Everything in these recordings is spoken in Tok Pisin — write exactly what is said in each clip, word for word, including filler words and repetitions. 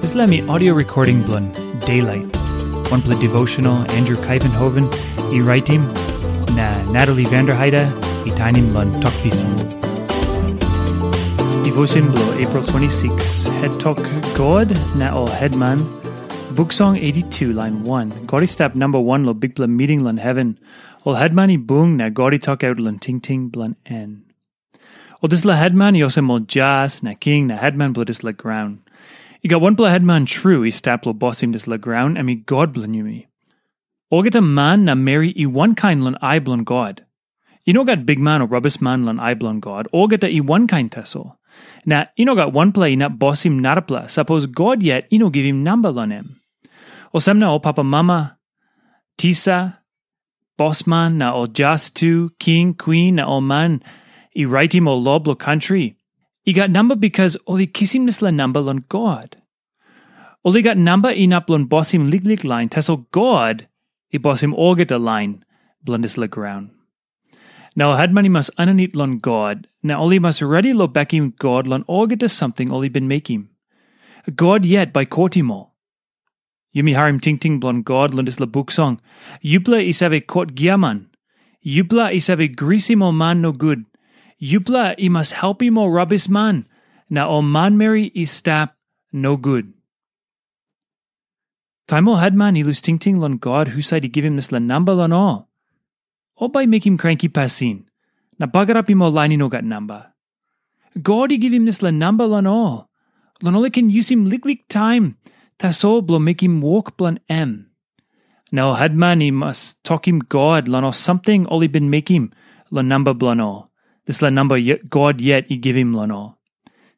Dispela mi audio recording bilong Daylight. Wanpela devotional Andrew Kaivenhoven i raitim, na Natalie Vanderheide i tainim long Tok Pisin. Devotion bilong April twenty-six, het tok God na ol hetman. Buk Song eighty-two, lain one. God i stap namba wan long bikpela miting long heven. Ol hetman i bung na God i tokaut long tingting bilong en. Ol dispela hetman i olsem ol jas na king na hetman bilong dispela graun. I gat wanpela hetman tru i stap long bosim dispela graun, em i God bilong yumi. Olgeta man na meri i wankain long ai bilong God. I no gat bikman o rabisman long ai bilong God, olgeta i wankain tasol. Na i no gat wanpela inap bosim narapela, sapos God yet i no givim namba long em. Olsem na ol papamama, tisa, bosman na ol jas tu, king, kwin na ol man i raitim ol lo bilong kantri, i gat namba bikas ol i kisim dispela namba long God. Ol i gat namba inap long bosim liklik lain, tasol God i bosim olgeta lain bilong dispela graun. Na ol hetman i mas aninit long God, na ol i mas redi long bekim God long olgeta samting ol i bin mekim. God yet bai kotim ol. Yumi harim tingting bilong God long dispela buk song. Yupela i save kot giaman. Yupela i save grisim ol man nogut. Yupela i mas helpim ol rabisman, na ol manmeri i stap nogut. Taim ol hetman i lus tingting long God husat i givim dispela namba long ol, ol bai mekim kranki pasin, na bagarapim ol lain i no gat namba. God i givim dispela namba long ol, long ol i ken yusim liklik taim tasol bilong mekim wok bilong em. Na ol hetman i mas tokim God long ol samting ol i bin mekim long namba bilong ol, dispela namba God yet i givim long ol.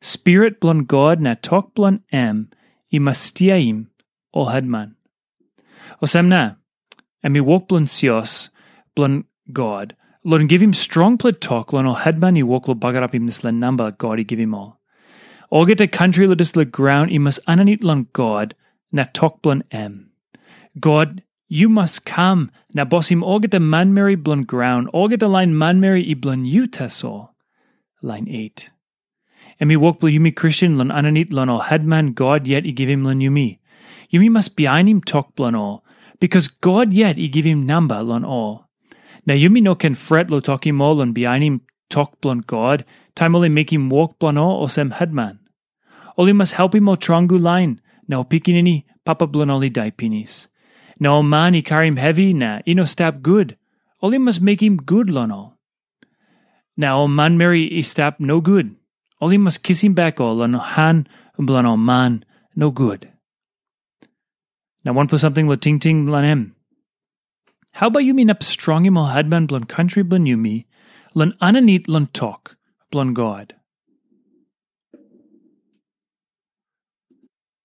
Spirit bilong God na tok bilong em i mas stiaim ol hetman. Olsem na, em i wok bilong sios bilong God, long givim strongpela tok long ol hetman i wok long bagarapim dispela namba God i givim ol. Olgeta kantri long dispela graun i mas aninit long God na tok bilong em. God, yu mas kam na bosim olgeta manmeri bilong graun, olgeta lain manmeri i bilong yu tasol. Lain eight. Em i wok bilong yumi Kristen long aninit long ol hetman God yet i givim long yumi. Yumi mas bihainim tok bilong ol, bikas God yet i givim namba long ol. Na yumi no ken fret long tokim ol long bihainim tok bilong God, taim ol i mekim wok bilong ol olsem hetman. Ol i mas helpim ol tromgu lain, na ol pikinini papa bilong ol i dai pinis. Na ol man i karim hevi na i no stap gut, ol i mas mekim gut long ol. Na ol manmeri i stap nogut, ol i mas kisim bek ol long han bilong ol man nogut. Na wanpela samting long tingting long em. Hau bai yumi inap strongim ol hetman bilong kantri bilong yumi long aninit long tok bilong God?